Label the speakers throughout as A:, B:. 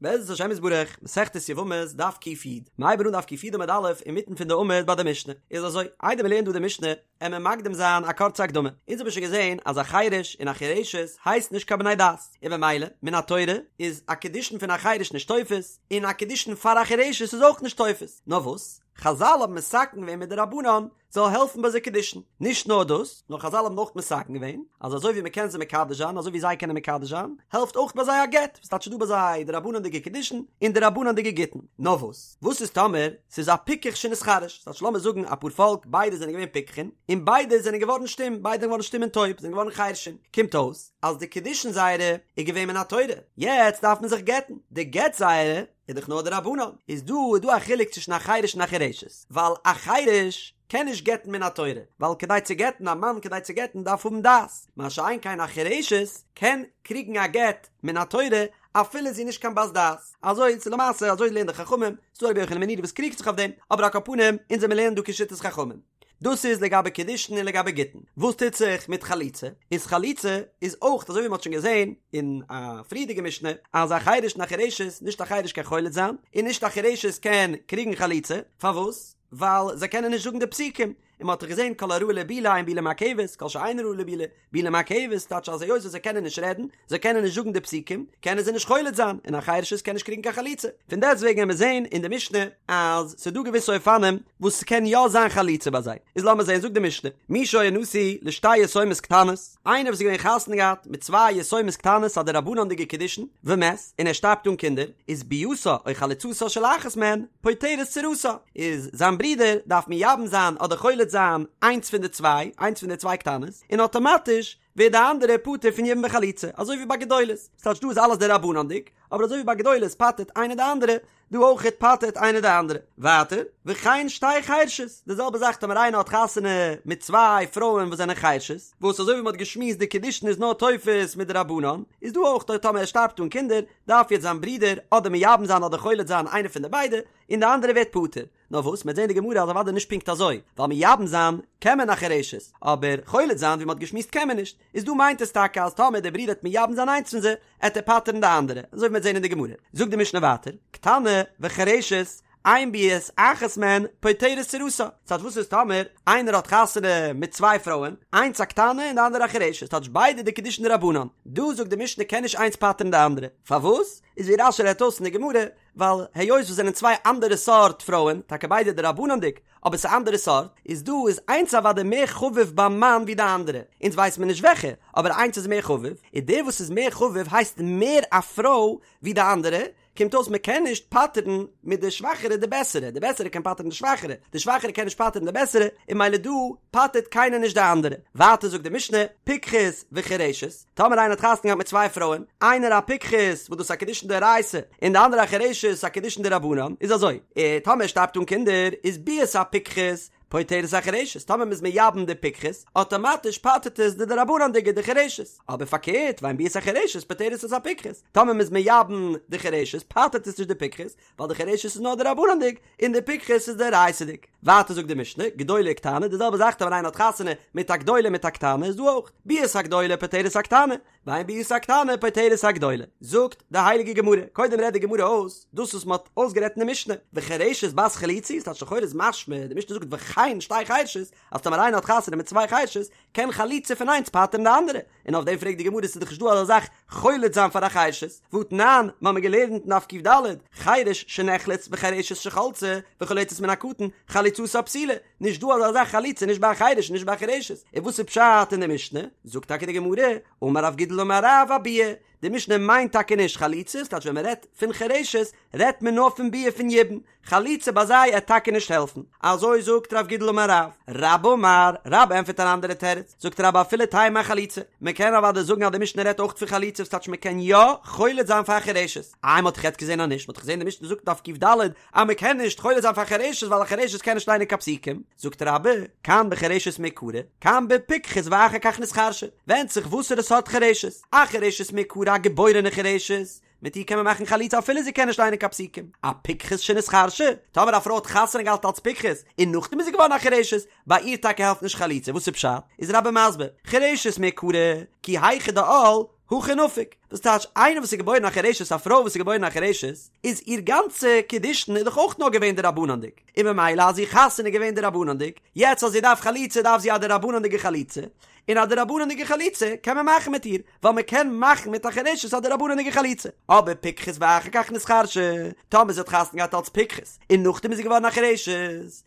A: בעזרת השם יתברך, מסכת יבמות, דף ק"י, מ'הייבן אן דף ק"י עמוד א', אינמיטן פון די עמוד ביי די משנה. איז אזוי, איידער מ'לערנט דא די משנה, עמיר מקדים זיין א קורצע הקדמה. אונז האבן שוין געזען אז א חירש און א חירשת הייסט נישט קיין בני דעת, און במילא, מן התורה, איז א קידושין פון א חירש נישט תופס, און א קידושין פאר א חירשת איז אויך נישט תופס. נאר וואס? חזל האבן מתקן געווען מדרבנן, זאל העלפן ביי זיי קידושין. נישט נאר דאס, נאר חזל האבן אויך מתקן געווען, אז אזוי ווי מ'קען זיי מקדש זיין, אזוי ווי זיי קענען מקדש זיין, העלפט אויך ביי זיי א גט, וואס טייטש ס'דא ביי זיי דרבנן'דיגע קידושין און דרבנן'דיגע גיטין. נאר וואס? וואס איז טאמער ס'איז א פיקח שנתחרש? ס'טייטש לאמיר זאגן א פארפאלק ביידע זענען געווען פיקחים, און ביידע זענען געווארן שטום, ביידע זענען געווארן שטום און טויב, זענען געווארן חרשים. קומט אויס אז די קידושין זייערע איז געווען מן התורה, יעצט דארף מען זיך גט'ן, די גט זייערע איז דאך נאר דרבנן, איז דא איז דא א חילוק צווישן א חירש און א חירשת, ווייל א חירש קען נישט גט'ן מן התורה, ווייל כדי צו גט'ן א מאן כדי צו גט'ן דארף האבן דעת, מה שאין כן א חירשת קען קריגן א גט מן התורה אפילו זי איז נישט קיין בת דעת, אזוי איז למעשה אזוי לערנען די חכמים, ס'דא רבי יוחנן בן נורי וואס קריגט זיך אויף דעם, אבער על כל פנים אונז וועמיר לערנען דא כשיטת חכמים. דאס איז לגבי קידושין און לגבי גיטין. וואס טוט זיך מיט חליצה? איז חליצה איז אויך אזוי ווי מ'האט שוין געזען אין א פריערדיגע משנה אז א חירש און א חירשת, נישט א חירש קען חולץ זיין און נישט א חירשת קען קריגן חליצה, פארוואס? ווייל זיי קענען נישט זאגן די פסוקים, און מ'האט דאך געזען כל הראוי לבילה אין בילה מעכבת, כל שאינו ראוי לבילה, בילה מעכבת, טייטש אז היות וואס זיי קענען נישט רעדן, זיי קענען נישט זאגן די פסוקים, קענען זיי נישט חולץ זיין, און א חירשת קען נישט קריגן קיין חליצה. פון דעסט וועגן וועמיר זען אין די משנה אז ס'איז דא געוויסע אופנים וואס ס'קען יא זיין חליצה ביי זיי. איז לאמיר זען, זאגט די משנה, מי שהיה נשוי לשתי יתומות קטנות, איינער וואס איז געווען חתונה געהאט מיט צוויי יתומות קטנות א דרבנן'דיגע קידושין, ומת, און ער שטארבט אן קינדער, איז ביאתה או חליצתה של אחת מהן פוטרת צרתה, איז זיין ברודער דארף מייבם זיין אדער חולץ זיין איינס פון די צוויי, איינס פון די צוויי קטנות, און אטאמאטיש ווערט די אנדערע פטור פון יבום וחליצה, אזוי ווי ביי גדולות, ס'טייטש דא איז אלעס דרבנן'דיג, אבער אזוי ווי ביי גדולות פטר'ט איינער די אנדערע, דא אויכעט פטר'ט איינער די אנדערע. ווייטער, וכן שתי חרשות, די זעלבע זאך טאמער איינער האט חתונה מיט צוויי פרויען וואס זענען חרשות, וואס אזוי ווי מ'האט געשמועסט די קידושין איז נאר תופס מדרבנן, איז דא אויך טאמער ער שטארבט אן קינדער, דארף יעצט זיין ברודער אדער מייבם זיין אדער חולץ זיין איינער פון די ביידע, און די אנדערע ווערט פטור. נאר וואס, מ'וועט זען די גמרא אז אוודאי נישט פונקט אזוי, ווייל מייבם זיין קען מען א חירשת, אבער חולץ זיין ווי מ'האט געשמועסט קען מען נישט, איז דא מיינט עס טאקע אז טאמער דער ברודער וועט מייבם זיין איינס פון זיי, עט ער פטר'ן די אנדערע, אזוי ווי מ'וועט זען אין די גמרא. זאגט די משנה ווייטער, קטנה וחירשת, אין ביאת אחת מהן פוטרת צרתה. ס'טייטש וואס איז טאמער איינער האט חתונה מיט צוויי פרויען, איינס א קטנה און די אנדערע א חירשת, ס'טייטש ביידע די קידושין דרבנן, דא זאגט די משנה קען נישט איינס פטר'ן די אנדערע, פארוואס? איז ווי רש"י רעדט אויס אין די גמרא, ווייל היות וואס זענען צוויי אנדערע סארט פרויען, טאקע ביידע דרבנן'דיג, אבער ס'איז אנדערע סארט, איז דא איז איינס אוודאי מער חביב ביים מאן ווי די אנדערע, אונז ווייסט מען נישט וועלכע, אבער איינס איז מער חביב, און דער וואס איז מער חביב הייסט מער א פרוי ווי די אנדערע, קומט אויס מען קען נישט פטר'ן מיט די שוואכערע די בעסערע, די בעסערע קען פטר'ן די שוואכערע, די שוואכערע קען נישט פטר'ן די בעסערע, און ממילא דא פטר'ט קיינער נישט די אנדערע. ווייטער זאגט די משנה, פיקחת וחירשת, טאמער איינער האט חתונה געהאט מיט צוויי פרויען, איינער א פיקחת וואס דאס איז א קידושין דאורייתא, און די אנדערע א חירשת א קידושין דרבנן, איז אזוי, אה, טאמער ער שטארבט אן קינדער, איז ביאת הפיקחת פוטרת החרשת, טאמער מ'איז מייבם די פיקחת, אטאמאטיש פטר'ט עס די דרבנן'דיגע די חירשת, אבער פארקערט, ואין ביאת החרשת פוטרת את הפיקחת, טאמער מ'איז מייבם די חירשת פטר'ט עס נישט די פיקחת, ווייל די חירשת איז נאר דרבנן'דיג, און די פיקחת איז דאורייתא'דיג. ווייטער זאגט די משנה, גדולה וקטנה, די זעלבע זאך טאמער איינער האט חתונה מיט א גדולה מיט א קטנה איז דא אויך, ביאת הגדולה פוטרת הקטנה, ואין ביאת הקטנה פוטרת הגדולה. זאגט די הייליגע גמרא, קודם רעדט די גמרא אויס דאס וואס מען האט אויסגערעדט אין די משנה, וחירשת בת חליצה היא, ס'טייטש לכאורה איז משמע, די משנה זאגט וכן שתי חירשות, אז טאמער איינער האט חתונה מיט צוויי חירשות, קען חליצה פון איינס פטר'ן די אנדערע, און אויף דעם פרעגט די גמרא ס'איז דאך נישט דא אזא זאך חולץ זיין פאר א חירשת, והתנן, מ'האמיר געלערנט אין דף ק"ד, חירש שנחלץ וחירשת שחלצה וחולצת מן הקטן, חליצתה פסולה, נישט דא אזא זאך חליצה נישט ביי א חירש און נישט ביי א חירשת, און וואס איז פשט אין די משנה? זאגט טאקע די גמרא, אמר רב גידל אמר רב אביאה, די משנה מיינט טאקע נישט חליצה, ס'טייטש ווען מ'רעדט פון חירשת רעדט מען נאר פון ביאה פון יבום, חליצה ביי זיי עט טאקע נישט העלפן. אזוי זאגט רב גידל אמר רב. רבה אמר, רבה ענטפערט אן אנדערע תירוץ, זאגט רבה אפילו תימא אחליצה, מען קען אוודאי זאגן אז די משנה רעדט אויך פון חליצה וואס טייטש מען קען יא חולץ זיין פאר חירשת. איי מען האט דאך יעצט געזען אז נישט, מען האט דאך געזען די משנה זאגט דף ק"ד אז מען קען נישט חולץ זיין פאר חירשת ווייל א חירשת קען נישט ליינען קיין פסוקים, זאגט רבה, כאן בחירשת מעיקרא, כאן בפיקחת ואחר כך נתחרשה, ווענדט זיך וואסערע סארט חירשת, א חירשת מעיקרא א געבוירענע חירשת, מיט איר קען מען מאכן חליצה אפילו זי קען נישט ליינען קיין פסוקים. א פיקחת שנתחרשה, טאמער א פרוי האט חתונה געהאט אלס פיקחת און נאכדעם איז זי געווארן א חירשת, ביי איר טאקע העלפט נישט חליצה, וואס איז פשט? איז רבה מסביר, חירשת מעיקרא, כי היכי דעל. הכי נפיק, וואס טייטש איינער וואס איז געבוירן א חירשת א פרוי וואס איז געבוירן א חירשת איז איר גאנצע קידושין איז דאך אויך נאר געווען דרבנן'דיג, און ממילא אז איר חתונה איז געווען דרבנן'דיג, יעצט אז זי דארף חליצה דארף זי א דרבנן'דיגע חליצה, און א דרבנן'דיגע חליצה קען מען מאכן מיט איר, ווייל מען קען מאכן מיט א חירשת א דרבנן'דיגע חליצה. אבער פיקחת ואחר כך נתחרשה, טאמער זי האט חתונה געהאט אלס פיקחת, און נאכדעם איז זי געווארן א חירשת,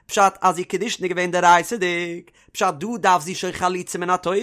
A: פשט אז איר קידושין איז געווען דאורייתא'דיג, פשט דא דארף זי שוין חליצה מן התורה,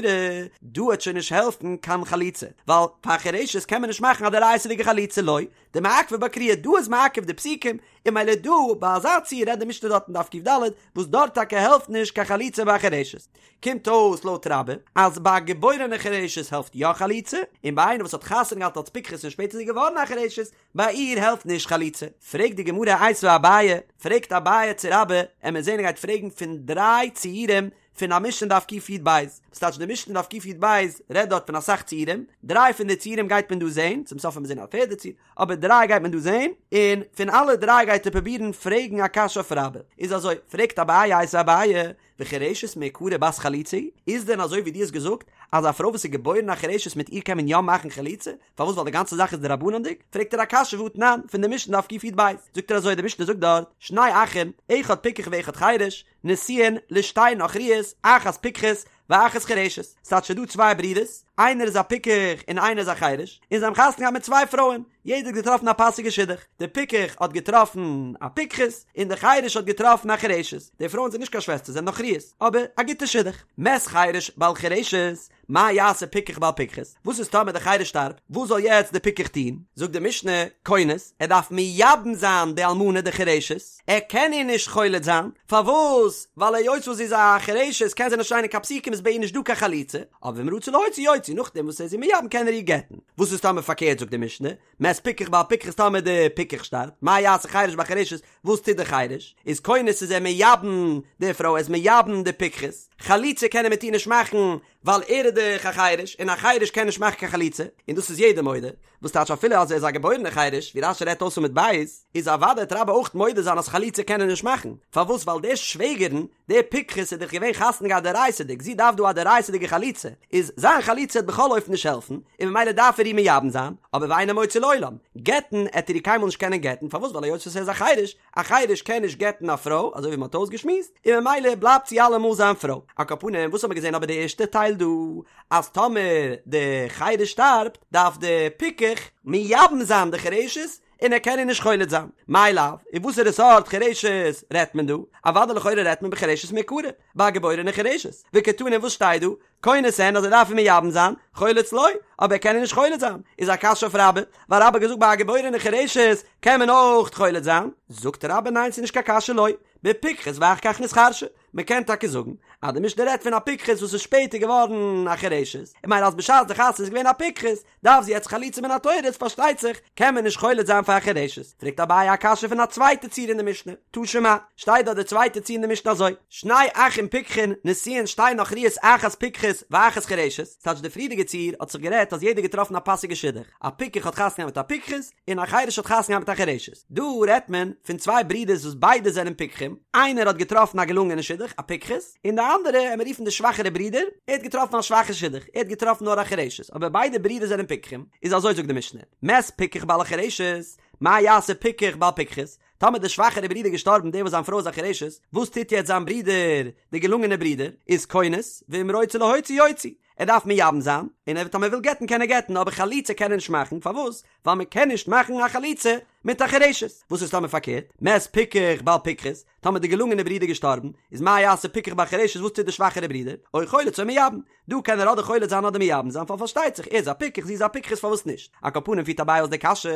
A: דא וועט שוין נישט העלפן קיין חליצה, ווייל פאר א חירשת קען מען נישט מאכן א דאורייתא'דיגע חליצה לא דמעכבא בה קריאה, דא איז מעכב די פסוקים, און ממילא דא ביי אזא ציור רעדט די משנה דארט אין דף ק"ד, וואס דארט טאקע העלפט נישט קיין חליצה ביי א חירשת. קומט אויס לויט רבה אז ביי א געבוירענע חירשת העלפט יא חליצה, און ביי איינער וואס האט חתונה געהאט אלס פיקחת און שפעטער איז זי געווארן א חירשת, ביי איר העלפט נישט חליצה. פרעגט די גמרא איתיביה אביי, פרעגט אביי צו רבה, עמיר זעהן ער גייט פרעגן פון דריי ציורים פון א משנה דף קי"ב, וואס טייטש די משנה דף קי"ב רעדט דארט פון אסאך ציורים, דריי פון די ציורים גייט מען דא זעהן, צום סוף וועט מען זעהן א פערדע ציור, אבער דריי גייט מען דא זעהן, און פון אלע דריי גייט ער פרובירן פרעגן א קשיא אויף רבה. איז אזוי, פרעגט אביי איתיביה אביי, וחירשת מעיקרא בת חליצה היא? איז דען אזוי ווי דו האסט געזאגט אז א פרוי וואס איז געבוירן א חירשת מיט איר קען מען יא מאכן חליצה? פארוואס ווייל די גאנצע זאך איז דרבנן'דיג? פרעגט ער א קשיא והא תנן פון די משנה דף קי"ב זאגט ער אזוי די משנה זאגט דארט שני אחים אחד פיקח ואחד חירש נשואין לשתי נכריות אחת פיקחת ואחת חירשת ס'טייטש ס'דא צוויי ברידערס איינער איז א פיקח און איינער איז א חירש און זיי האבן חתונה געהאט מיט צוויי פרויען יעדער האט געטראפן א פאסיגע שידוך דער פיקח האט געטראפן א פיקחת און דער חירש האט געטראפן א חירשת די פרויען זענען נישט קיין שוועסטער זענען נכריות אבער א גוטע שידוך מת חירש בעל חירשת מה יעשה פיקח בעל פיקחת? וואס איז טאמער דער חירש שטארבט? וואס זאל יעצט דער פיקח טון? זאגט די משנה, כונס, ער דארף מייבם זיין די אלמנה די חירשת, ער קען איר נישט חולץ זיין, פארוואס? ווייל היות וואס זי איז א חירשת קען זי נישט ליינען קיין פסוקים איז ביי איר נישט דא קיין חליצה, אבער ואם רצה להוציא יוציא, נאכדעם וואס ער איז איר מייבם קען ער איר גט'ן. וואס איז טאמער פארקערט זאגט די משנה, מת פיקח בעל פיקחת טאמער די פיקח שטארבט, מה יעשה חירש בעל חירשת, וואס טוט די חירש? איז כונס איז ער מייבם די פרוי, ער איז מייבם די פיקחת, חליצה קען ער מיט איר נישט מאכן ווייל ער איז דאך א חירש און א חירש קען נישט מאכן קיין חליצה, און דאס איז יעדער מודה, וואס טייטש אפילו אז ער איז א געבוירענער חירש, ווי רש"י רעדט אויס עמוד ב', איז אוודאי וועט רבה אויך מודה זיין אז חליצה קען ער נישט מאכן, פארוואס ווייל די שוועגערן, די פיקחת איז דאך געווען חתונה געהאט דאורייתא'דיג, זי דארף דא א דאורייתא'דיגע חליצה, איז זיין חליצה וועט בכל אופן נישט העלפן, און ממילא דארף ער איר מייבם זיין, אבער ואינו מוציא לעולם, גט'ן עט ער איר קיינמאל נישט קענען גט'ן, פארוואס ווייל היות וואס ער איז א חירש, א חירש קען נישט גט'ן א פרוי, אזוי ווי מען האט אויסגעשמועסט, און ממילא בלייבט זי אלעמאל זיין פרוי. על כל פנים, וואס האט מען געזען אבער די ערשטע טייל דא, אז טאמער די חירש שטארבט, דארף די פיקח מייבם זיין די חירשת, און ער קען איר נישט חולץ זיין. מאי לאו, און וואסערע סארט חירשת רעדט מען דא? אוודאי לכאורה רעדט מען בחירשת מעיקרא, ביי א געבוירענע חירשת. וקתני וואס שטייט דא? כונס אין אז ער דארף איר מייבם זיין, חולץ לא, אבער ער קען איר נישט חולץ זיין. איז א קשיא אויף רבה, ווייל רבה האט געזאגט ביי א געבוירענע חירשת קען מען אויך חולץ זיין. זאגט רבה ניין ס'איז נישט קיין קשיא לא, בפיקחת ואחר כך נתחרשה. מען קען טאקע זאגן אז די משנה רעדט פון א פיקחת וואס איז שפעטער געווארן א חירשת, און ממילא אז בשעת די חתונה איז געווען א פיקחת, דארף זי יעצט חליצה מן התורה איז פארשטייט זיך קען מען נישט חולץ זיין פאר א חירשת, פרעגט אביי א קשיא פון א צווייטע ציור אין די משנה, תא שמע, שטייט דארט די צווייטע ציור אין די משנה אזוי, שני אחים פיקחין נשואין שתי נכריות אחת פיקחת ואחת חירשת, ס'טייטש די פריערדיגע ציור האט זיך גערעדט אז יעדער געטראפן א פאסיגע שידוך, א פיקח האט חתונה געהאט מיט א פיקחת, און א חירש האט חתונה געהאט מיט א חירשת. דא רעדט מען פון צוויי ברידערס וואס ביידע זענען פיקחים, איינער האט געטראפן א געלונגענע שידוך, א פיקחת, און די אנדערע, עמיר רופן די שוואכערע ברודער, ער האט געטראפן א שוואכע שידוך, ער האט געטראפן נאר א חירשת, אבער ביידע ברידער זענען פיקחים, איז אזוי זאגט די משנה, מת פיקח בעל החירשת, מה יעשה פיקח בעל פיקחת, טאמער די שוואכערע ברודער געשטארבן דער וואס זיין פרוי איז א חירשת, וואס טוט יעצט זיין ברודער, די געלונגענע ברודער, איז כונס, ואם רוצה להוציא יוציא, ער דארף מייבם זיין, און ער טאמער וויל גט'ן קען ער גט'ן, אבער חליצה קען ער נישט מאכן, פארוואס? ווייל מען קען נישט מאכן א חליצה מיט א חירשת. וואס איז טאמער פארקערט? מת פיקח בעל פיקחת, טאמער די געלונגענע ברודער געשטארבן, איז מה יעשה פיקח בעל חירשת וואס טוט די שוואכערע ברודער? או חולץ או מייבם. דא קען ער אדער חולץ זיין אדער מייבם זיין, ווייל פארשטייט זיך ער איז א פיקח זי איז א פיקחת פארוואס נישט? על כל פנים פירט אביי אויס די קשיא,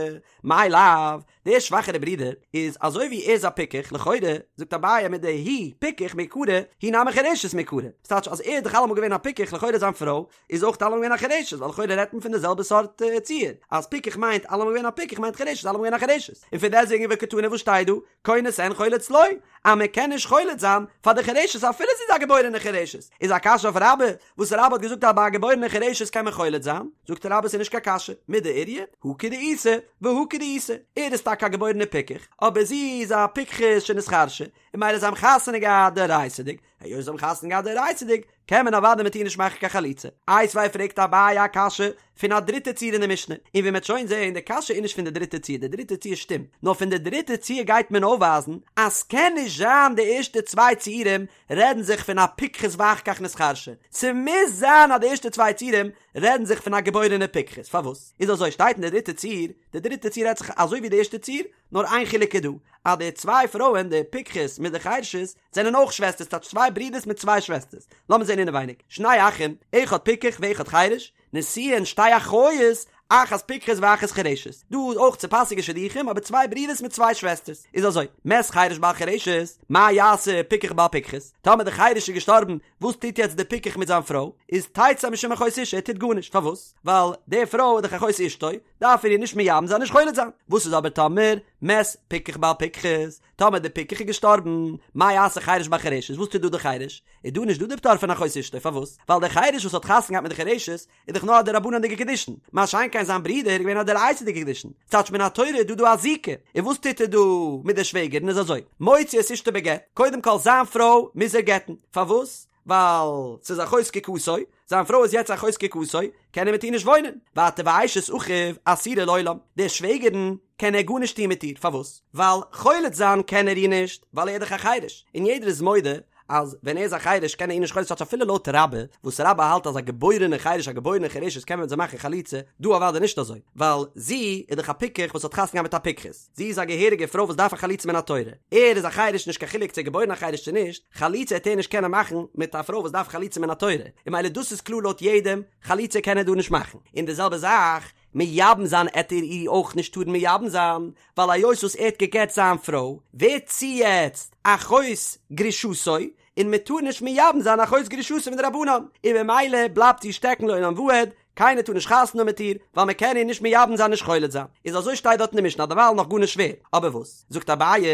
A: מאי לאו, דער שוואכערע ברודער איז אזוי ווי ער איז א פיקח, לכאורה, זאגט אביי מדהוא פיקח מעיקרא, היא נמי חירשת מעיקרא, ס'טייטש אז ער איז דאך אלעמאל געווען א פיקח לכאורה זיין פרוי איז אויך אלעמאל געווען א חירשת ווייל לכאורה רעדט מען פון די זעלבע סארט ציור, אז פיקח מיינט אלעמאל געווען א פיקח מיינט חירשת אלעמאל געווען א חירשת, און פון דעסטוועגן וקתני וואס שטייט דא, כונס אין חולץ לא, אז מען קען נישט חולץ זיין פאר די חירשת אפילו זי איז א געבוירענע חירשת, איז א קשיא אויף רבה, וואס רבה האט געזאגט אז ביי א געבוירענע חירשת קען מען חולץ זיין, זאגט רבה ס'איז נישט קיין קשיא, מידי איריא, הא כדאיתא, והא כדאיתא, ער איז טאקע א געבוירענע פיקח, אבער זי איז א פיקחת שנתחרשה, און ממילא זיי האבן חתונה געהאט דאורייתא'דיג, היות זיי האבן חתונה געהאט דאורייתא'דיג, קען מען אוודאי מיט איר נישט מאכן קיין חליצה. איתיביה פרעגט אביי א קשיא פון א דריטע ציור אין די משנה, און ווי מ'עט שוין זעהן די קשיא איז נישט פון די דריטע ציור, די דריטע ציור שטימט, נאר פון די דריטע ציור גייט מען אויפווייזן אז ס'קען נישט זיין די ערשטע צוויי ציורים רעדן זיך פון א פיקחת ואחר כך נתחרשה, ס'מוז זיין אז די ערשטע צוויי ציורים רעדן זיך פון א געבוירענע פיקחת, פארוואס איז אזוי שטייט אין די דריטע ציור, די דריטע ציור רעדט זיך אזוי ווי די ערשטע ציור, נאר איין חילוק איז דא, אז די צוויי פרויען די פיקחת מיט די חרשת זענען אויך שוועסטערס טייטש צוויי ברידערס מיט צוויי שוועסטערס, לאמיר זען אינעווייניג, שני אחים, אחד פיקח ואחד חרש, נשואין שתי אחיות, אחת פיקחת ואחת חרשת, דא איז אויך צופאסיגע שידוכים אבער צוויי ברידערס מיט צוויי שוועסטערס, איז אזוי, מת חרש בעל חרשת, מה יעשה פיקח בעל פיקחת, טאמער די חרש איז געשטארבן, וואס טוט יעצט די פיקח מיט זיין פרוי, איז תצא משום אחות אשה, ער טוט גארנישט, פארוואס? ווייל די פרוי איז דאך אחות אשתו, דארף ער איר נישט מייבם זיין נישט חולץ זיין, וואס איז אבער טאמער מת פיקח בעל פיקחת, טאמער די פיקח איז געשטארבן, מה יעשה חרש בעל חרשת, וואס טוט דא די חרש? איז דא נישט דא די פטור פון אחות אשתו, פארוואס? ווייל דער חרש וואס האט חתונה געהאט מיט די חרשת איז דאך נאר א דרבנן'דיגע קידושין, מה שאין כן זיין ברודער איז געווען א דאורייתא'דיגע קידושין, ס'טייטש מן התורה איז דא דא א זיקה, און וואס טוט ער דא מיט די שוועגערין איז אזוי, מוציא את אשתו בגט, קודם כל זיין פרוי מוז ער גט'ן, פארוואס? ווייל ס'איז אחות זקוקתו, זיין פרוי איז יעצט אחות זקוקתו, קען ער מיט איר נישט וואוינען, ווייטער ואשת אחיו אסורה לעולם, די שוועגערין קען ער גארנישט טון מיט איר, פארוואס? ווייל חולץ זיין קען ער איר נישט, ווייל ער איז דאך א חירש, און יעדער איז מודה אז ווען ער איז א חירש קען ער איר נישט חולץ זיין אפילו לויט רבה, וואס רבה האלט אז א געבוירענע חירש א געבוירענע חירשת קען מען מיט זיי מאכן חליצה, דא אוודאי נישט אזוי, ווייל זי איז דאך א פיקח וואס האט חתונה געהאט מיט א פיקחת. זי איז א געהעריגע פרוי וואס דארף א חליצה מן התורה, ער איז א חירש נישט קיין חילוק צו ער געבוירן א חירש צו נישט, חליצה העט ער נישט קענען מאכן מיט א פרוי וואס דארף חליצה מן התורה, און ממילא דאס איז קלאר לויט יעדעם, חליצה קען ער דא נישט מאכן, און די זעלבע זאך, מייבם זיין עט ער איר אויך נישט טארן מייבם זיין, ווייל היות וואס ער האט גע'גט זיין פרוי, ווערט זי יעצט אחות גרושתו, און מען טאר נישט מייבם זיין אחות גרושתו מדרבנן, און ממילא בלייבט זי שטעקן לעולם ועד, קיינער טאר נישט חתונה האבן מיט איר, ווייל מען קען איר נישט מייבם זיין נישט חולץ זיין. איז אזוי שטייט דארט אין די משנה דערווייל נאך גארנישט שווער. אבער וואס? זאגט אביי,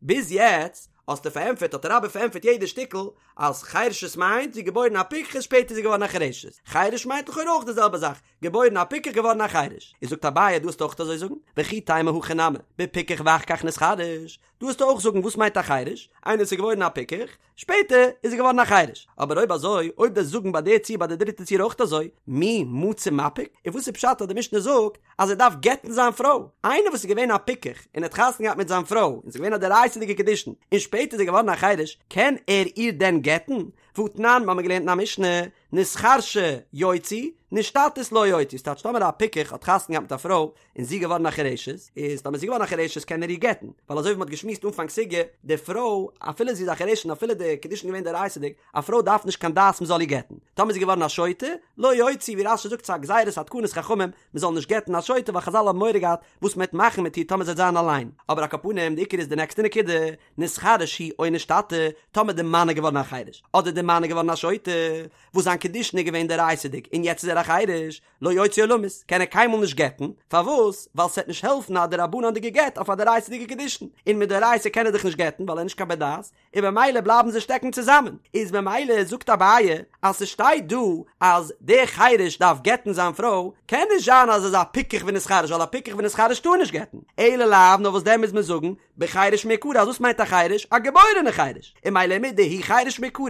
A: ביז יעצט האסטו פארענטפערט האט רבה פארענטפערט יעדע שטיקל אז חירשת מיינט זי געבוירן א פיקחת שפעטער איז זי געווארן א חירשת. חירש מיינט לכאורה אויך די זעלבע זאך, געבוירן א פיקח געווארן א חירש. איז זאגט אביי דא וועסטו אויך אזוי זאגן, וכי תימא הכא נמי, בפיקח ואחר כך נתחרש, דא וועסטו אויך זאגן וואס מיינט א חירש, איינער וואס איז געבוירן א פיקח, שפעטער איז ער געווארן א חירש. אבער אויב אזוי, אויב דו'סט זאגן ביי די ציור ביי די דריטע ציור אויך אזוי, מי מצי מפיק? און וואס איז פשט אז די משנה זאגט אז ער דארף גט'ן זיין פרוי? איינער וואס איז געווען א פיקח און האט חתונה געהאט מיט זיין פרוי און ס'איז געווען א דאורייתא'דיגע קידושין און שפעטער איז ער געווארן א חירש, קען ער איר דען גט'ן? והתנן, מ'האמיר געלערנט אין א משנה, נתחרשה יוציא, נשתטית לא יוציא, ס'טייטש טאמער א פיקח האט חתונה געהאט מיט א פרוי און זי געווארן א חירשת, איז טאמער זי געווארן א חירשת קען ער איר גט'ן, ווייל אזוי ווי מ'האט געשמועסט אנפאנג סוגיא, די פרוי אפילו זי איז א חירשת און אפילו די קידושין געווען דאורייתא'דיג, א פרוי דארף נישט קיין דעת מ'זאל איר גט'ן, טאמער זי געווארן א שוטה, לא יוציא, ווי רש"י זאגט ס'איז א גזירת התקנת חכמים מ'זאל נישט גט'ן א שוטה ווייל חז"ל האבן מורא געהאט וואס מ'וועט מאכן מיט איר טאמער זי וועט זיין אליין, אבער על כל פנים די עיקר איז די נעקסטע נקודה, נתחרש הוא או נשתטה, טאמער די מאן איז געווארן א חירש, אדער די מאן איז געווארן א שוטה, וואס זיין קידושין איז געווען דאורייתא'דיג און יעצט איז ער א חירש, לא יוציא עולמית, קען ער קיינמאל נישט גט'ן, פארוואס? ווייל ס'וועט נישט העלפן א דרבנן'דיגע גט אויף א דאורייתא'דיגע קידושין, און מדאורייתא קען ער דאך נישט גט'ן ווייל ער איז נישט קיין בר דעת, און במילא בלייבן זיי שטעקן צוזאמען, איז במילא זאגט אביי אז ס'שטייט דא אז דער חירש דארף גט'ן זיין פרוי, קען נישט זיין אז עס איז א פיקח ונתחרש ווייל א פיקח ונתחרש טאר נישט גט'ן, אלא לאו נאר וואס דען מוז מען זאגן בחירש מעיקרא אז וואס מיינט א חירש? א געבוירענע חירש, און ממילא מדהוא חירש מעיקרא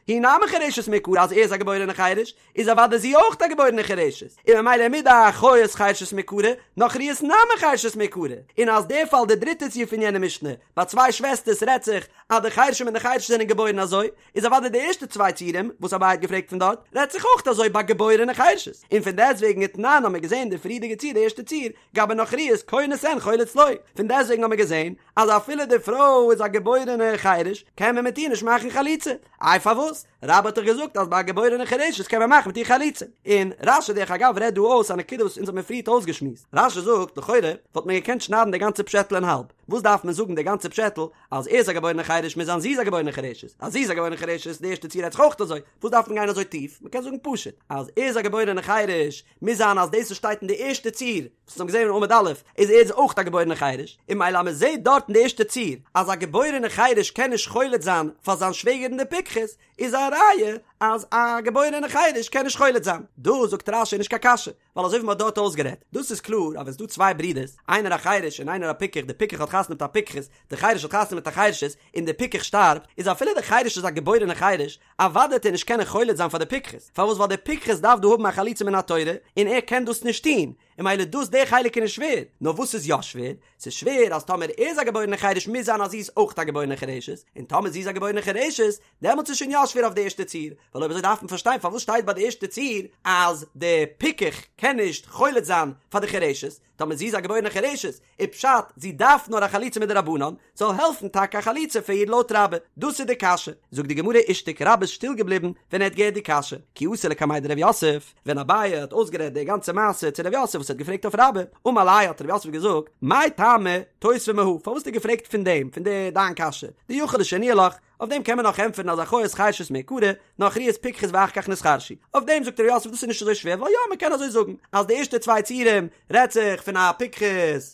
A: היא נמי חירשת מעיקרא אז ער איז א געבוירענע חירש איז אוודאי זי אויך א געבוירענע חירשת, און ממילא מדאחיות חירשות מעיקרא, נכריות נמי חירשות מעיקרא, און אז דער פאל די דריטע ציור פון יענע משנה, ביי צוויי שוועסטערס רעדט זיך אז די חירשים און די חירשות זענען געבוירן אזוי, איז אוודאי די ערשטע צוויי ציורים וואס אביי האט געפרעגט פון דארט, רעדט זיך אויך אזוי ביי געבוירענע חירשות, און פון דעסטוועגן ותנן האבן מיר געזען די פריערדיגע ציור די ערשטע ציור, גבי נכריות כונס אין חולץ לא, פון דעסטוועגן האבן מיר געזען אז אפילו די פרוי איז א געבוירענע חירש קען מען מיט איר נישט מאכן חליצה, איי פארוואס? רבה האט דאך געזאגט אז ביי א געבוירענע חירשת קען מען מאכן מיט איר חליצה. און רש"י דרך אגב רעדט דא אויס א נקודה וואס אונז האט מען פריערט אויסגעשמועסט. רש"י זאגט, לכאורה וואלט מען געקענט שניידן די גאנצע פשעטל אין האלב. וואס דארף מען זאגן די גאנצע פשעטל אז ער איז א געבוירענע חירש מוז זיין זי איז א געבוירענע חירשת. אז זי איז א געבוירענע חירשת די ערשטע ציור רעדט זיך אויך אזוי. וואס דארף מען גיין אזוי טיף? מען קען זאגן פשוט אז ער איז א געבוירענע חירש מוז זיין אז דאס וואס שטייט אין די ערשטע ציור וואס אונז האבן געזען אין עמוד א' איז ער איז אויך א געבוירענע חירש, און ממילא אז מען זעט דארט אין די ערשטע ציור אז א געבוירענע חירש קען נישט חולץ זיין פאר זיין שוועגערין די פיקחת, איז א ראיה אז א געבוירענע חירש קען נישט חולץ זיין. דא זאגט רש"י נישט קיין קשיא, ווייל אזוי ווי מ'האט דארט אויסגערעדט, דאס איז קלאר אז ווען ס'דא צוויי ברידערס, איינער א חירש און איינער א פיקח, די פיקח האט חתונה מיט א פיקחת, די חירש האט חתונה מיט א חירשת, און די פיקח שטארבט, איז אפילו די חירש איז א געבוירענע חירש, אוודאי וועט ער נישט קענען חולץ זיין פאר די פיקחת, פארוואס ווייל די פיקחת דארף דא האבן א חליצה מן התורה, און ער קען דאס נישט טון, און ממילא דאס די חלק איז נישט שווער, נאר וואס איז יא שווער? ס'איז שווער אז טאמער ער איז א געבוירענע חירש מוז זיין אז זי איז אויך א געבוירענע חירשת, און טאמער זי איז א געבוירענע חירשת, דעמאלטס איז שוין יא שווער אויף די ערשטע ציור, ווייל אויב אזוי דארף מען פארשטיין פארוואס שטייט ביי די ערשטע ציור אז די פיקח קען נישט חולץ זיין פאר די חירשת, טאמער זי איז א געבוירענע חירשת, איז פשט זי דארף נאר א חליצה מדרבנן, זאל העלפן טאקע א חליצה פאר איר לויט רבה, דאס איז די קשיא. זאגט די גמרא אישתיק רבה איז שטיל געבליבן ווען ער האט געהערט די קשיא, כי אתא לקמיה דרב יוסף, ווען אביי האט אויסגערעדט די גאנצע מעשה צו רב יוסף וואס ער האט געפרעגט אויף רבה, אמר ליה האט רב יוסף געזאגט, מאי טעמא תותבא מהא, פארוואס האסטו געפרעגט פון דעם, פון די דיין קשיא, דיכול לשנויי לך, אויף דעם קען מען נאך ענטפערן אז אחיות חרשות מעיקרא, נכריות פיקחות ואחר כך נתחרשו. אויף דעם זאגט ר' יוסף דאס איז נישט אזוי שווער ווייל יא מען קען אזוי זאגן אז די ערשטע צוויי ציורים רעדט זיך פון א פיקחת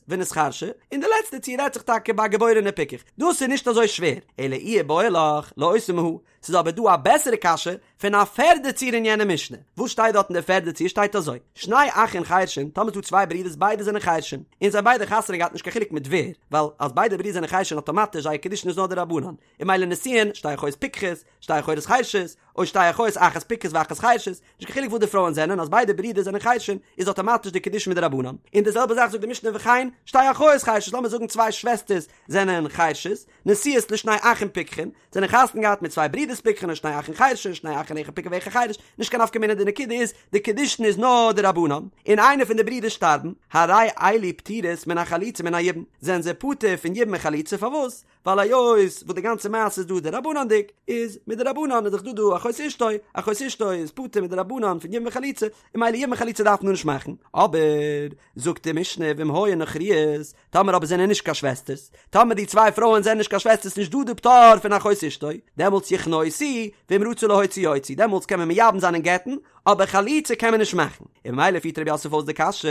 A: ונתחרשה און די לעצטע ציור רעדט זיך טאקע ביי א געבוירענע פיקח דאס איז נישט אזוי שווער אלא אי איבעיא לך לאותבא מהא ס'איז אבער דא א בעסערע קשיא פון א פערדע ציור אין יענע משנה. וואס שטייט דארט אין די פערדע ציור שטייט אזוי, שני אחין חרשין, טאמער ס'דא צוויי ברידערס ביידע זענען חרשים, און זיי ביידע חתונה געהאט נישט קיין חילוק מיט ווער, ווייל אז ביידע ברידער זענען חרשין אטאמאטיש זייער קידושין איז נאר דרבנן, און ממילא נישואין, שתי אחיות פיקחות, שתי אחיות חרשות, או שתי אחיות אחת פיקחת ואחת חרשת, נישט קיין חילוק וואס די פרויען זענען, אז ביידע ברידער זענען חרשין איז אטאמאטיש די קידושין מדרבנן, און די זעלבע זאך זאגט די משנה וכן, שתי אחיות חרשות, לאמיר זאגן צוויי שוועסטערס זענען חרשות, נשואות לשני אחים פיקחין, זענען חתונה געהאט מיט צוויי ברידערס פיקחין או שני אחים חרשין, שני אחים אחד פיקח ואחד חרש, נישט קיין נפקא מינה די נקודה איז, די קידושין איז נאר דרבנן, און איינער פון די ברידערס שטארבן, הרי אלו פטורות מן החליצה ומן היבום, זענען זיי פטור פון יבום און חליצה פארוואס? ווייל היות וואס די גאנצע מעשה איז דא דרבנן'דיג, איז מדרבנן איז דאך דא דא אחות אשתו, אחות אשתו איז פטור מדרבנן פון יבום וחליצה, און ממילא יבום און חליצה דארף מען נישט מאכן, אבער זאגט די משנה ואם היו נכריות, טאמער אבער זענען נישט קיין שוועסטערס, טאמער די צוויי פרויען זענען נישט קיין שוועסטערס נישט דא די פטור פון אחות אשתו, דעמאלטס יכנוסו, ואם רצו להוציא יוציאו, דעמאלטס קען מען מייבם זיין און גט'ן, אבער חליצה קען מען נישט מאכן. און ממילא פירט רב יוסף אויס די קשיא,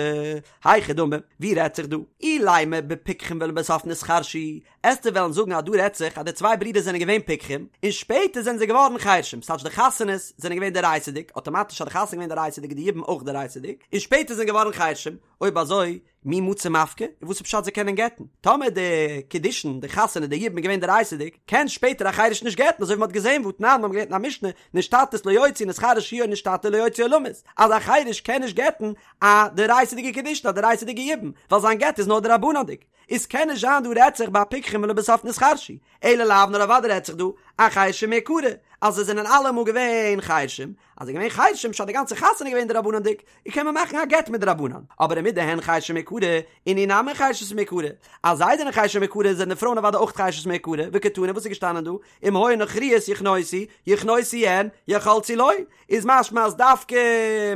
A: היכי דמי, ווי רעדט זיך דא? אילימא בפיקחין ולבסוף נתחרשו, עסטו וועלן זאגן אז דא רעדט זיך אז די צוויי ברידער זענען געווען פיקחים, און שפעטער זענען זיי געווארן חרשים, ס'טייטש די חתונות זענען געווען דאורייתא'דיג, אטאמאטיש אז די חתונה איז געווען דאורייתא'דיג איז די יבום אויך דאורייתא'דיג, און שפעטער זענען געווארן חרשים, אויב אזוי, מי מצו מפקי, און וואס איז פשט זיי קענען גט'ן? טאמער די קידושין, די חתונה, די יבום איז געווען דאורייתא'דיג, קען שפעטער א חירש נישט גט'ן, אזוי ווי מ'האט געזען והתנן, מ'האט געלערנט אין א משנה, נשתטית לא יוציא, נתחרש הוא או נשתטה לא יוציא עולמית, אז א חירש קען נישט גט'ן א דאורייתא'דיגע קידושין, א דאורייתא'דיגע יבום, ווייל זיין גט איז נאר דרבנן'דיג. איז קען נישט זיין דא רעדט זיך ביי פיקחים ולבסוף נתחרשו, אלא לאו נאר אוודאי רעדט זיך דא אחרשים מעיקרא, אז זיי זענען אלעמאל געווען חרשים, אז זיי געווען חרשים פשט די גאנצע חתונה געווען דרבנן'דיג, און קען מען מאכן א גט מדרבנן, אבער ומדהן חרשים מעיקרא, אינהו נמי חרשות מעיקרא, אז זיי זענען חרשים מעיקרא זענען די פרויען אוודאי אויך חרשות מעיקרא, וקתני וואס איז געשטאנען דא, אם היו נכריות יכנוסו, יכנוסו אין, יחלצו לא, איז משמע אז דווקא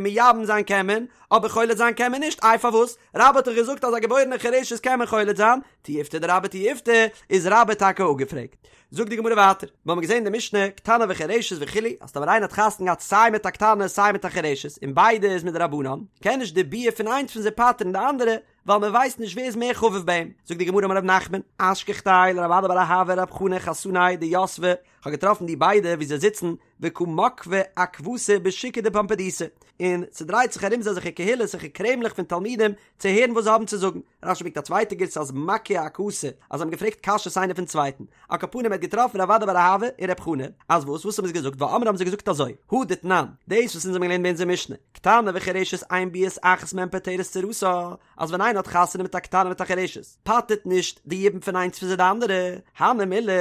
A: מייבם זיין קען מען, אבער חולץ זיין קען מען נישט, איי פארוואס? רבה האט דאך געזאגט אז א געבוירענע חירשת קען מען חולץ זיין, תיובתא דרבה תיובתא, איז רבה טאקע אפגעפרעגט. זאגט די גמרא ווייטער, מיר האבן געזען אין די משנה, קטנה וחירשת וכו', אז טאמער איינער האט חתונה געהאט סיי מיט א קטנה סיי מיט א חירשת, און ביידע איז מדרבנן, קען נישט די ביאה פון איינס פון זיי פטר'ן די אנדערע, ווייל מען ווייסט נישט ווער איז מער חביב ביי אים. זאגט די גמרא אמר רב נחמן, אשכחתיה לרב אדא בר אהבה ורב חנא חתנאי דיתבי, כ'האב געטראפן די ביידע ווי זיי זיצן וקא מקבי עכבתא בשוקא דפומבדיתא, און ס'דרייט זיך ארום זיי אזעלכע קהילות אזעלכע קרעמלעך פון תלמידים צו הערן וואס זיי האבן צו זאגן. רש"י ברענגט א צווייטע גירסא אז מקהו עכתא, אז זיי האבן געפרעגט קשיות איינער פון צווייטן. על כל פנים ער האט געטראפן רב אדא בר אהבה און רב חנא, אז וואס? וואס האבן זיי געזאגט? ואמרי האבן זיי געזאגט אזוי, הא דתנן, דאס וואס אונז האבן געלערנט ביי אונזער משנה, קטנה וחירשת אין ביאת אחת מהן פוטרת צרתה, אז ווען איינער האט חתונה מיט א קטנה מיט א חירשת, פטר'ט נישט די יבום פון איינס פון זיי די אנדערע, הני מילי,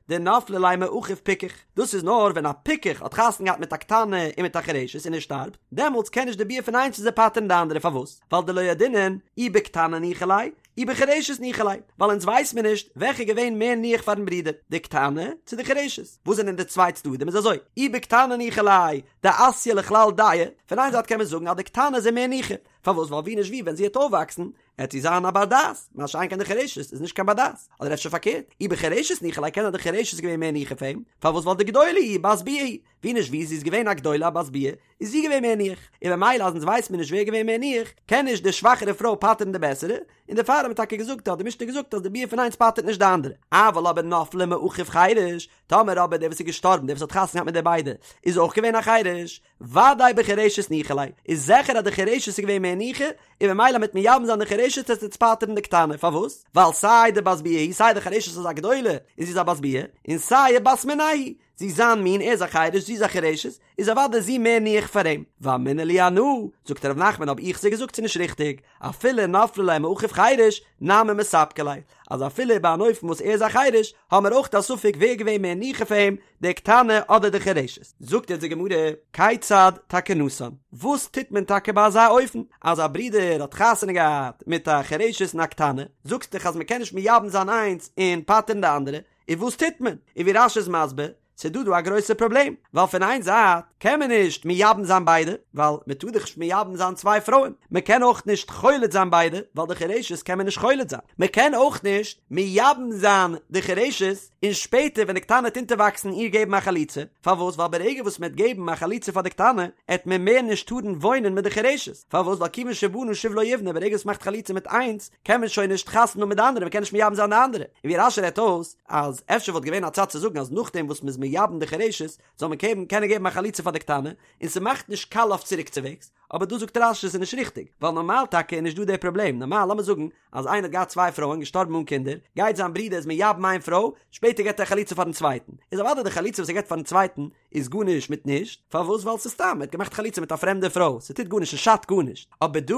A: דנפלה ליה מאחיו פיקח, דאס איז נאר ווען א פיקח האט חתונה געהאט מיט א קטנה און מיט א חירשת און ער שטארבט, דעמאלטס קען נישט די ביאה פון איינס פון זיי פטר'ן די אנדערע, פארוואס? ווייל דלא ידעינן אי בקטנה ניחא ליה אי בחירשת ניחא ליה, ווייל אונז ווייס מיר נישט וועלכע איז געווען מער ניח פארן ברודער, די קטנה צו די חירשת, וואס זענען די צוויי צדדים איז אזוי, אי בקטנה ניחא ליה דאתיא לכלל דעה, פון איין זייט קען מען זאגן אז די קטנה איז אים מער ניחא, פארוואס ווייל ווי נישט ווי ווען זי וועט אויפוואקסן עט זי זיין א בר דעת, מה שאין כן די חירשת איז נישט קיין בר דעת, אדער אפשר פארקערט, אי בחירשת ניחא ליה קען זיין די חירשת איז געווען מער ניחא פאר אים, פארוואס ווייל דגדולה היא בת ביאה היא, ווי נישט ווי זי איז געווען א גדולה א בת ביאה, איז זי געווען מער ניח, און ממילא אז אונז ווייסט מיר נישט ווער געווען מער ניח, קען נישט די שוואכערע פרוי פטר'ן די בעסערע, און דערפאר האט מען טאקע געזאגט האט די משנה געזאגט אז די ביאה פון איינס פטר'ט נישט די אנדערע, אבל אבער נפלה מאחיו חירש, טאמער אבער דער וואס איז געשטארבן דער וואס האט חתונה געהאט מיט די ביידע איז אויך געווען א חירש, ודאי בחירשת ניחא ליה, איז זיכער אז די חירשת איז געווען מער. מער ניחא, און ממילא מיט מייבם זיין די חירשת וועט עס פטר'ן די קטנה, פארוואס? ווייל סיי די בת ביאה היא סיי די חירשת איז א גדולה און זי איז א בת ביאה, און סיי בת מיניה היא, זי איז זיין מין, ער איז א חירש, זי איז א חירשת, איז אוודאי זי מער ניחא פאר אים. ואמינא להו אנא, זאגט ר' נחמן האב איך זיי געזאגט ס'איז נישט ריכטיג, אפילו נפלה ליה מאחיו חירש, נמי מספקא ליה, אז אפילו ביי אן אופן וואס ער איז א חירש, האמער אויך א ספק ווער איז געווען מער ניחא פאר אים, די קטנה אדער די חירשת. זאגט יעצט די גמרא, כיצד תקנתן? וואס טוט מען טאקע ביי אזא אופן, אז א ברודער האט חתונה געהאט מיט א חירשת און א קטנה, זאגסט דאך אז מען קען נישט מייבם זיין איינס און פטר'ן די אנדערע, און וואס טוט מען? און ווי רש"י איז מסביר, ס'איז דא דא א גרויסע פראבלעם, ווייל פון איין זייט קען מען נישט מייבם זיין ביידע, ווייל מען טאר דאך נישט מייבם זיין צוויי פרויען, מען קען אויך נישט חולץ זיין ביידע, ווייל די חירשת קען מען נישט חולץ זיין, מען קען אויך נישט מייבם זיין די חירשת, און שפעטער ווען די קטנה וועט אונטערוואקסן איר געבן א חליצה, פארוואס? ווייל ברגע וואס מען וועט געבן א חליצה פאר די קטנה, עט מען מער נישט טארן וואוינען מיט די חירשת, פארוואס? ווייל כיוון שבנה שוב לא יבנה, ברגע וואס מען מאכט חליצה מיט איינס, קען מען שוין נישט חתונה האבן מיט די אנדערע, מען קען נישט מייבם זיין די אנדערע, און ווי רש"י רעדט אויס, אז אפשר וואלט געווען א צד צו זאגן אז נאכדעם וואס מ'איז מייבם די חירשת זאל מען קען קענען געבן א חליצה פאר די קטנה, און ס'מאכט נישט קאליע אויף צוריקצווועגס, אבער דא זאגט רש"י ס'איז נישט ריכטיג, ווייל נארמאל טאקע איז נישט דא די פראבלעם, נארמאל לאמיר זאגן אז איינער האט געהאט צוויי פרויען געשטארבן אן קינדער, גייט זיין ברודער איז מייבם איין פרוי, שפעטער געבט ער א חליצה פארן צווייטן, איז אוודאי די חליצה וואס ער געבט פארן צווייטן איז גארנישט מיט נישט, פארוואס ווייל ס'איז סתם ער האט געמאכט חליצה מיט א פרעמדע פרוי, ס'טוט גארנישט ס'שאדט גארנישט, אבער דא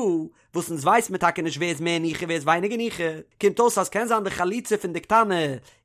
A: וואס אונז ווייס מיר טאקע נישט ווער איז מער ניחא ווער איז ווייניגער ניחא, קומט אויס אז קען זיין די חליצה פון די קטנה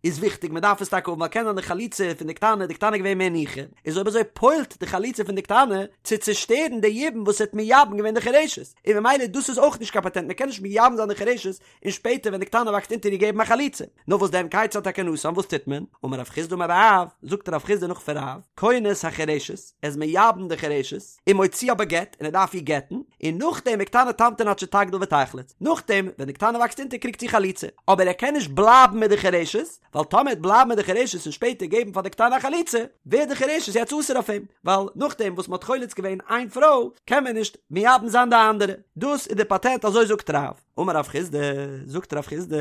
A: איז וויכטיג מען דארף עס טאקע האבן ווייל קען זיין די חליצה פון די קטנה די קטנה איז געווען מער ניחא, איז אויב אזוי פועל'ט די חליצה פון די קטנה צו צושטערן די יבום וואס האט מייבם געווען די חירשת, און ממילא דאס איז אויך נישט קיין פאטענט מען קען נישט מייבם זיין די חירשת און שפעטער ווען די קטנה וואקסט אונטער איר געבן א חליצה. נאר וואס דען כיצד תקנתן וואס טוט מען? אמר רב חסדא אמר רב, זאגט רב חסדא נאך פון רב, כונס החירשת, ער איז מייבם די חירשת, ומוציאה בגט, און ער דארף איר גט'ן, און נאכדעם וקטנה תמתין עד שתגדיל ותחלוץ, נאכדעם ווען די קטנה וואקסט אונטער קריגט זי חליצה, אבער ער קען נישט בלייבן מיט די חירשת, ווייל טאמער ער וועט בלייבן מיט די חירשת און שפעטער געבן פאר די קטנה א חליצה, ווערט די חירשת יעצט אסור אויף אים, ווייל נאכדעם וואס מען האט חולץ געווען איין פרוי, קען מען נישט מייבם זיין די אנדערע. דאס איז די פאטענט אזוי זאגט רב. אמר רב חסדא, זאגט רב חסדא,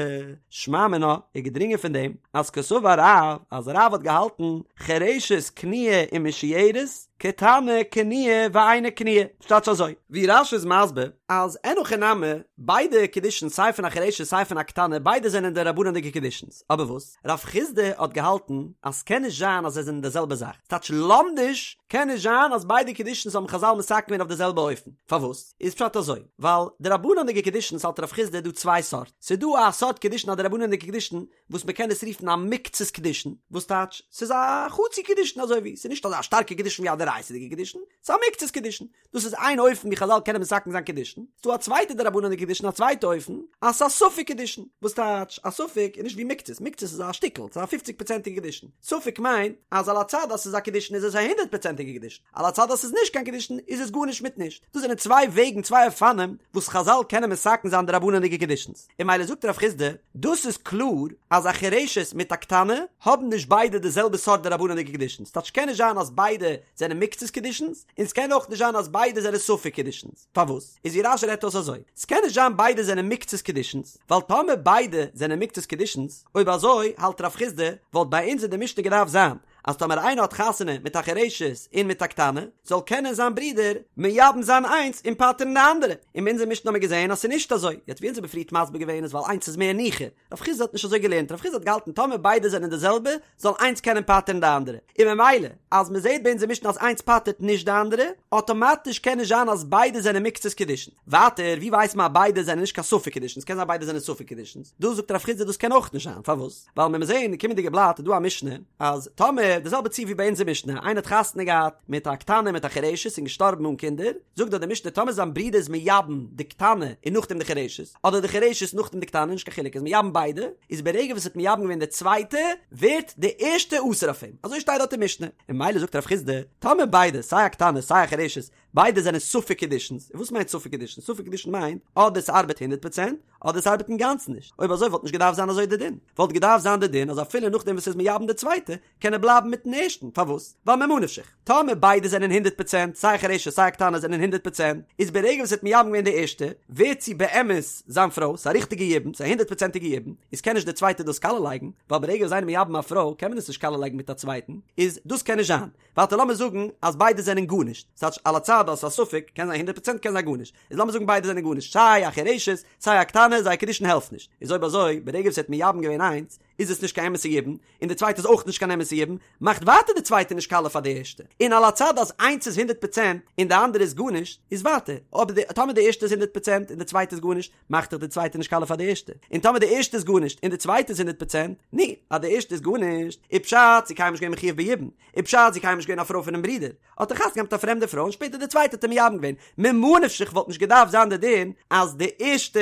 A: שמע מינה, איז געדרינגען פון דעם, אז קסבר רב, אז רב האט געהאלטן, חירשת קנויה ומשוירת, קטנה קנויה ואינה קנויה, ס'טייטש אזוי, ווי רש"י איז מסביר, אז אין הכי נמי, ביידע קידושין סיי פון א חירשת סיי פון א קטנה ביידע זענען דרבנן'דיגע קידושינס, אבער וואס? רב חסדא האט געהאלטן אז ס'קען נישט זיין אז זיי זענען די זעלבע זאך, ס'טייטש לומדיש קען נישט זיין אז ביידע קידושינס האבן חז"ל מתקן געווען אויף די זעלבע אופן, פארוואס? איז פשט אזוי, ווייל דרבנן'דיגע קידושין האלט רב חסדא דא צוויי סארט, ס'איז דא א סארט קידושין א דרבנן'דיגע קידושין וואס מ'קען עס רופן א מקצת קידושין, וואס טייטש ס'איז א חצי קידושין אזוי ווי, ס'איז נישט אזא שטארקע קידושין ווי א דאורייתא'דיגע קידושין, ס'איז א מקצת קידושין, דאס איז איין אופן ווי חז"ל קענען מתקן זיין קידושין, ס'דא א צווייטע דרבנן'דיגע קידושין א צווייטע אופן, אז ס'איז א ספק קידושין, וואס טייטש א ספק איז נישט ווי מקצת, מקצת איז א שטיקל, ס'איז א פופציג פראצענטיגע קידושין, ספק מיינט אז על הצד אז ס'איז א קידושין איז עס א הונדערט פראצענטיגע קידושין, על הצד אז ס'איז נישט קיין קידושין איז עס גארנישט מיט נישט, דאס זענען צוויי וועגן צוויי אופנים וואס חז"ל קענען מתקן זיין דרבנן'דיגע קידושין'ס, און ממילא זאגט רב חסדא, דאס איז קלאר אז א חירשת מיט א קטנה האבן נישט ביידע די זעלבע סארט דרבנן'דיגע קידושין, ס'טייטש ס'קען נישט זיין אז ביידע זענען מקצת קידושין'ס, און ס'קען אויך נישט זיין אז ביידע זענען ספק קידושין'ס, פארוואס? איז ווי רש"י רעדט אויס אזוי, ס'קען נישט זיין ביידע זענען מקצת קידושין'ס, ווייל טאמער ביידע זענען מקצת קידושין'ס, אויב אזוי האלט רב חסדא וואלט ביי אונז אין די משנה געדארפט זיין אז טאמער איינער האט חתונה מיט א חירשת און מיט א קטנה, זאל קענען זיין ברודער מייבם זיין איינס און פטר'ן די אנדערע, און אין אונזער משנה האבן מיר געזען אז ס'איז נישט אזוי, יעצט ווי אונז האבן פריערט מסביר געווען איז ווייל איינס איז מער ניחא, רב חסדא האט נישט אזוי געלערנט, רב חסדא האט געהאלטן טאמער ביידע זענען די זעלבע, זאל איינס קענען פטר'ן די אנדערע, און ממילא אז מ'זעט ביי אונזער משנה אז איינס פטר'ט נישט די אנדערע, אטאמאטיש קען נישט זיין אז ביידע זענען מקצת קידושין. ווייטער, ווי ווייסט מען אז ביידע זענען נישט קיין ספק קידושין? ס'קען זיין ביידע זענען ספק קידושין. דא זאגט רב חסדא דאס קען אויך נישט זיין, פארוואס? ווייל מיר זעהן אין די קומענדיגע בלאט איז דא א משנה אז טאמער די זעלבע ציור ווי ביי אונזער משנה איינער האט חתונה געהאט מיט א קטנה מיט א חירשת און געשטארבן אן קינדער זאגט דארט די משנה טאמער זיין ברודער איז מייבם די קטנה און נאכדעם די חירשת אדער די חירשת נאכדעם די קטנה נישט קיין חילוק איז מייבם ביידע איז ברגע וואס ער האט מייבם געווען די צווייטע ווערט די ערשטע אסור אויף אים אזוי שטייט דארט אין משנה און ממילא זאגט רב חסדא טאמער ביידע סיי א קטנה סיי א חירשת ביידע זענען ספק קידושין'ס, און וואס מיינט ספק קידושין? ספק קידושין מיינט אדער ס'ארבעט הונדערט פראצענט, אדער ס'ארבעט אינגאנצן נישט. אויב אזוי וואלט נישט געדארפט זיין אזוי די דין. וואלט געדארפט זיין די דין אז אפילו נאכדעם וואס ער איז מייבם די צווייטע, קען ער בלייבן מיטן ערשטן. פארוואס? ווייל ממה נפשך. טאמער ביידע זענען הונדערט פראצענט, סיי חירשת סיי קטנה זענען הונדערט פראצענט, איז ברגע וואס ער האט מייבם געווען די ערשטע, ווערט זי באמת זיין פרוי, ס'איז א ריכטיגע יבום, ס'איז א הונדערט פראצענטיגע יבום, איז קען נישט די צווייטע דאס קאליע לייגן, ווייל ברגע וואס איינער מייבם א פרוי קען מען עס נישט קאליע לייגן מיט א צווייטן, איז דאס קען נישט זיין. ווייטער לאמיר זאגן אז ביידע זענען גארנישט, ס'טייטש על הצד הצד אז ס'איז א ספק, קען זיין הונדרעט פראצענט קען זיין גארנישט, איז לאמיר זאגן ביידע זענען גארנישט, סיי א חירשת סיי א קטנה, זייער קידושין העלפט נישט, איז אויב אזוי ברגע וואס ער האט מייבם געווען איינס, איז עס נישט קיין אמת'ע יבום, און די צווייטע איז אויך נישט קיין אמת'ע יבום, מאכט ווייטער די צווייטע נישט קאליע פאר די ערשטע, און על הצד אז איינס איז הונדרעט פראצענט און די אנדערע איז גארנישט, איז ווייטער, אבער די טאמער די ערשטע איז הונדרעט פראצענט און די צווייטע איז גארנישט, מאכט דאך די צווייטע נישט קאליע פאר די ערשטע, און טאמער די ערשטע איז גארנישט און די צווייטע איז הונדרעט פראצענט, נו, אז די ערשטע איז גארנישט, איז פשט זי קיינמאל נישט געווען מחויב ביבום, איז פשט זי קיינמאל נישט געווען א פרוי פונעם ברודער, האט ער חתונה געהאט מיט א פרעמדע פרוי און שפעטער די צווייטע האט ער מייבם געווען, ממה נפשך וואלט נישט געדארפט זיין די דין אז די ערשטע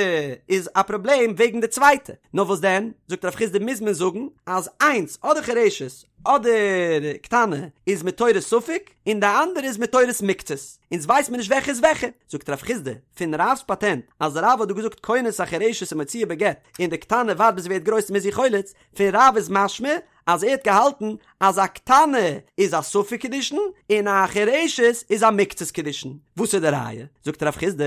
A: איז א פראבלעם וועגן די צווייטע, נאר וואס דען, זאגט רב חסדא מוז מען זאגן אז איינס אדער חירשת אדער קטנה איז מתורת ספק און די אנדערע איז מתורת מקצת, אונז ווייס מיר נישט וועלכע איז וועלכע, זאגט רב חסדא פון רב'ס פאטענט אז רב האט דא געזאגט כונס החירשת ומוציאה בגט און די קטנה ווארט ביז זי ווערט גרויס מ'איז איר חולץ, פון רב איז משמע אז ער האט געהאלטן אז א קטנה איז א ספק קידושין און א חירשת איז א מקצת קידושין. וואס איז די ראיה? זאגט רב חסדא,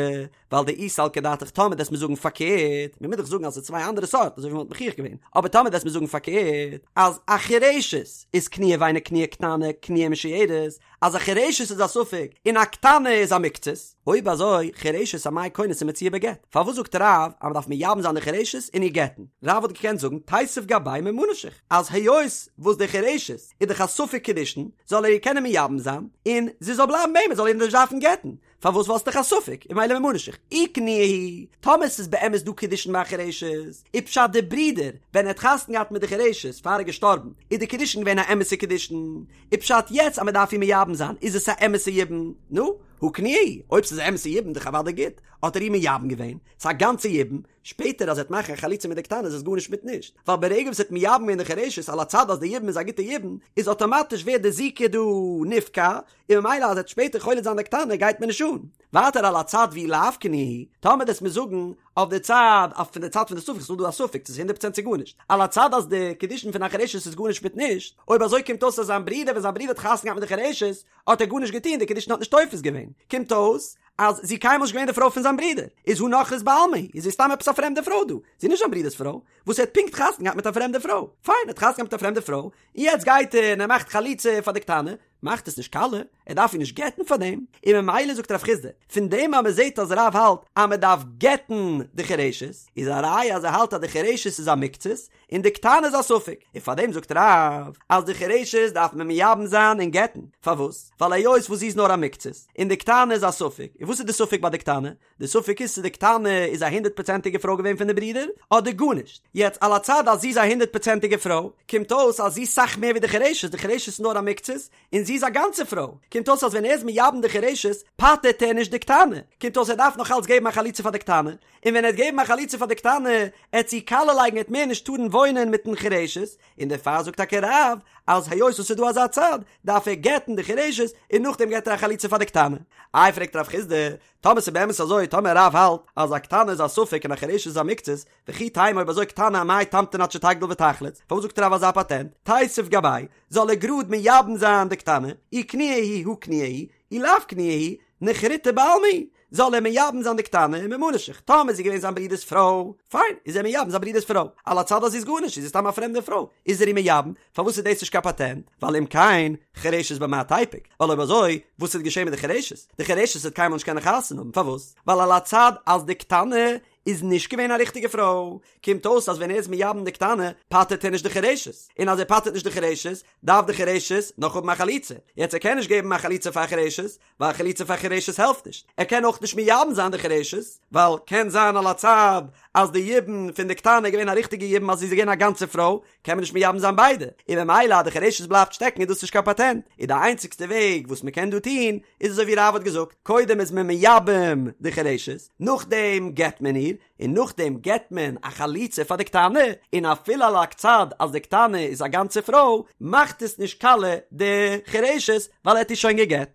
A: ווייל דאי סלקא דעתך טאמער דו'סט מיר זאגן פארקערט, מ'מוז דאך זאגן אז ס'איז צוויי אנדערע סארט אזוי ווי מ'וואלט מוכיח געווען, אבער טאמער דו'סט מיר זאגן פארקערט אז א חירשת איז קנויה ואינה קנויה קטנה קנויה ומשויירת, אז א חירשת איז א ספק און א קטנה איז א מקצת, אויב אזוי חירשת אמאי כונס ומוציאה בגט, פארוואס זאגט רב אז מ'דארף מייבם זיין די חירשת און איר גט'ן? רב וואלט געקענט זאגן תיתיב גביה ממה נפשך אז היות וואס די חירשת איז דאך א ספק קידושין זאל ער איר קענען מייבם זיין און זי זאל בלייבן ביי אים ער זאל איר נישט דארפן גט'ן, פארוואס ווייל ס'דאך א ספק און ממילא ממה נפשך אי קנויה היא, טאמער ס'איז באמת דא קידושין ביי א חירשת, איז פשט די ברודער ווען ער האט חתונה געהאט מיט די חירשת פאר ער איז געשטארבן איז די קידושין געווען א אמת'ע קידושין, איז פשט יעצט אז מ'דארף איר מייבם זיין איז עס א אמת'ע יבום, נו, הא קנויה היא, אויב ס'איז א אמת'ע יבום דאך אוודאי גוט, האט ער איר מייבם געווען, ס'איז א גאנצע יבום, שפעטער אז ער וועט מאכן א חליצה מיט די קטנה איז עס גארנישט מיט נישט, ווייל ברגע וואס ער האט מייבם געווען די חירשת על הצד אז די יבום איז א גוטע יבום, איז אטאמאטיש ווערט די זיקה דא נפקע, און ממילא אז ער וועט שפעטער חולץ זיין די קטנה גייט מיר נישט אן. ווייטער על הצד ואי לאו קנויה היא, טאמער דו'סט מיר זאגן אויף די צד אויף פון די צד פון די ספק, ס'איז דא א ספק צו ס'איז הונדערט פראצענט צו גארנישט, על הצד אז די קידושין פון א חירשת איז גארנישט מיט נישט, אויב אזוי קומט אויס אז זיין ברודער ווען זיין ברודער האט חתונה געהאט מיט די חירשת האט ער גארנישט געטון די קידושין האט נישט תופס געווען, קומט אויס אז זי קיינמאל נישט געווען די פרוי פון זיין ברודער, איז הא נכרית בעלמא היא, איז זי סתם עפעס א פרעמדע פרוי דא, זי איז נישט זיין ברודער'ס פרוי, וואס ער האט פונקט חתונה געהאט מיט א פרעמדע פרוי, פיין ער האט חתונה געהאט מיט א פרעמדע פרוי, און יעצט גייט ער און ער מאכט חליצה פאר די קטנה, מאכט עס נישט קאליע, ער דארף איר נישט גט'ן פאר דעם, און ממילא זאגט רב חסדא, פון דעם אז מען זעט אז רב האלט אז מען דארף גט'ן די חירשת, איז א ראיה אז ער האלט אז די חירשת איז א מקצת, און די קטנה איז א ספק, און פאר דעם זאגט רב אז די חירשת דארף מען מייבם זיין און גט'ן, פארוואס? ווייל היות וואס זי איז נאר א מקצת, און די קטנה איז א ספק, און וואס איז די ספק ביי די קטנה? די ספק איז צו די קטנה איז א הונדערט פראצענטיגע פרוי געווען פון די ברודער אדער גארנישט, יעצט על הצד אז זי איז א הונדערט פראצענטיגע פרוי, קומט אויס אז זי איז סאך מער ווי די חירשת, די חירשת איז נאר א מקצת, און זי איז א גאנצע פרוי, קומט אויס אז ווען ער איז מייבם די חירשת פטר'ט ער נישט די קטנה, קומט אויס ער דארף נאך אלץ געבן א חליצה פאר די קטנה, און ווען ער וועט געבן א חליצה פאר די קטנה, עט זי קאליע לייגן עט מער נישט טארן וואוינען מיטן חירשת, און דערפאר זאגט טאקע רב אז היות עס איז דא אזא צד, דארף ער גט'ן די חירשת און נאכדעם געט ער א חליצה פאר די קטנה. איי פרעגט רב חסדא, טאמער ס'איז באמת אזוי, טאמער רב האלט אז א קטנה איז א ספק און א חירשת איז א מקצת, וכי תימא אויב אזוי קטנה אמאי תמתין עד שתגדיל ותחלוץ, פארוואס זאגט רב אזא פאטענט, תיתיב גביה, זאל ער גראד מייבם זיין די קטנה, אי קנויה היא הא קנויה היא, אי לאו קנויה היא, נכריתא בעלמא היא, זאל ער מייבם זיין די קטנה און ממה נפשך, טאמער איז זי געווען זיין ברודער'ס פרוי, פיין, איז ער מייבם זיין ברודער'ס פרוי, על הצד אז זי איז גארנישט, זי איז סתם א פרעמדע פרוי, איז ער איר מייבם, פארוואס איז דאס נישט קיין פאטענט? ווייל אם כן, חירשת במה תיפוק, ווייל אויב אזוי, וואס איז געשען מיט די חירשת? די חירשת וועט קיינמאל נישט קענען חתונה האבן, פארוואס? ווייל על הצד אז די קטנה איז נישט געווען א ריכטיגע פרוי, קומט אויס אז ווען ער איז מייבם די קטנה, פטר'ט ער נישט די חירשת, און אז ער פטר'ט נישט די חירשת, דארף די חירשת נאך האבן א חליצה, יעצט ער קען נישט געבן א חליצה פאר חירשת, ווייל חליצה פאר חירשת העלפט נישט, ער קען אויך נישט מייבם זיין די חירשת, ווייל קען זיין על הצד אז די יבום פון די קטנה איז געווען א ריכטיגע יבום אז זי איז געווען א גאנצע פרוי, קען מען נישט מייבם זיין ביידע, און ממילא אז די חירשת בלייבט שטעקן איז דאס נישט קיין פאטענט, און די איינציגסטע וועג וואס מען קען דא טון איז אזוי ווי רב האט געזאגט, קודם איז מען מייבם די חירשת, נאכדעם גט מען איר, און נאכדעם געט מען א חליצה פאר די קטנה, און אפילו על הצד אז די קטנה איז א גאנצע פרוי, מאכט עס נישט קאליע די חירשת ווייל ער האט איר שוין געגעט.